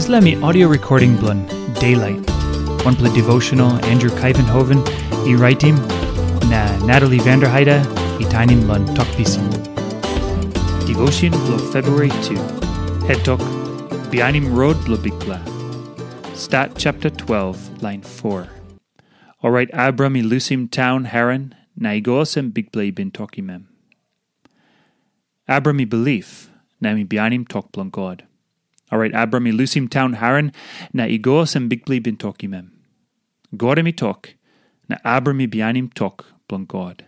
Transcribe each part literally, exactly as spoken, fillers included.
Dispela mi audio recording bilong Daylight, wanpela devotional Andrew Kaivenhoven i raitim, na Natalie Vanderheide i tainim long Tok Pisin. Devotion bilong February two. Het tok, Bihainim Rot bilong Bikpela. Stat chapter twelve, lain four. Orait Abram i lusim taun Haran, na i go olsem Bikpela i bin tokim em. Abram i bilip, na em i bihainim tok bilong God. Orait Abram i lusim taun Haran, na i go olsem Bikpela i bin tokim em. God em i tok, na Abram i bihainim tok bilong God.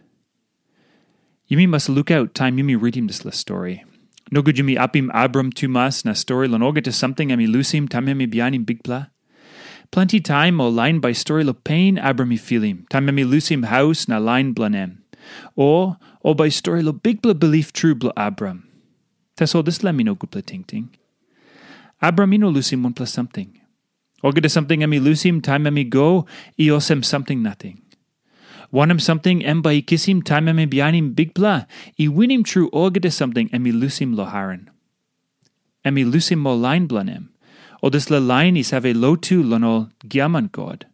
Yumi mas lukaut taim yumi ritim dispela stori. Nogut yumi apim Abram tumas na stori long olgeta samting em i lusim taim em i bihainim Bikpela. Planti taim ol lain bai stori long pen Abram i filim, taim em i lusim haus na lain bilong em. O ol bai stori long bikpela bilip tru bilong Abram. Tasol dispela mi no gutpela tingting. Abram i no lusim wanpela samting. Olgeta samting em i lusim taim em i go, i olsem samting nating. Wanem samting em bai i kisim taim em i bihainim Bikpela, i winim tru olgeta samting em i lusim long Haran. Em i lusim ol lain bilong em, ol dispela lain i save lotu long ol giaman god.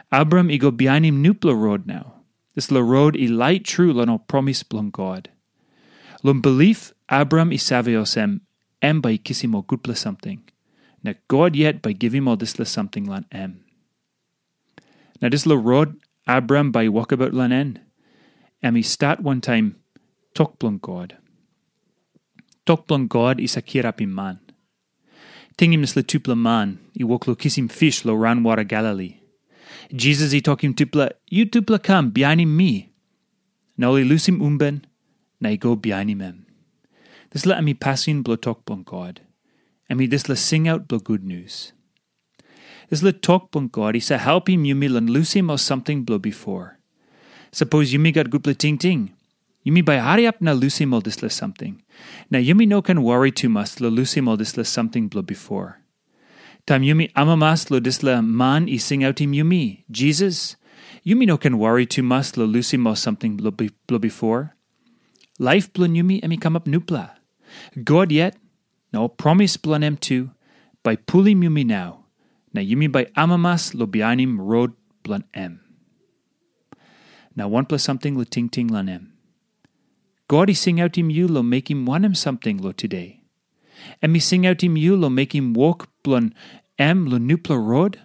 Abram i go bihainim nupela rot nau. Dispela rot i lait tru long ol promis bilong God. Long bilip, Abram i save olsem, em bai i kisim ol gutpela samting, na God yet bai givim ol dispela samting long em. Na dispela rot Abram bai i wokabaut long en, em i stat wantaim tok bilong God. Tok bilong God i save kirapim man. Tingim dispela tupela man i wok long kisim pis long raunwara Galili. Jisas i tokim tupela, "Yutupela kam bihainim mi." Na ol i lusim umben, na i go bihainim em. Dispela em i pasin bilong tok bilong God. Em i dispela singaut bilong gutnius. Dispela tok bilong God i save helpim yumi long lusim ol samting bilong bipo. Sapos yumi gat gutpela tingting, yumi bai hariap na lusim ol dispela samting. Na yumi no ken wari tumas long lusim ol dispela samting bilong bipo. Taim yumi amamas long dispela man i singautim yumi, Jisas, yumi no ken wari tumas long lusim ol samting bilong bi- bilong bipo. Laip bilong yumi em i kamap nupela. God yet, na ol promis bilong em tu, bai pulim yumi nau, na yumi bai amamas long bihainim rot bilong em. Na wanpela samting long tingting long em. God i singautim yu long mekim wanem samting long tude? Em i singautim yu long mekim wok bilong em long nupela rot?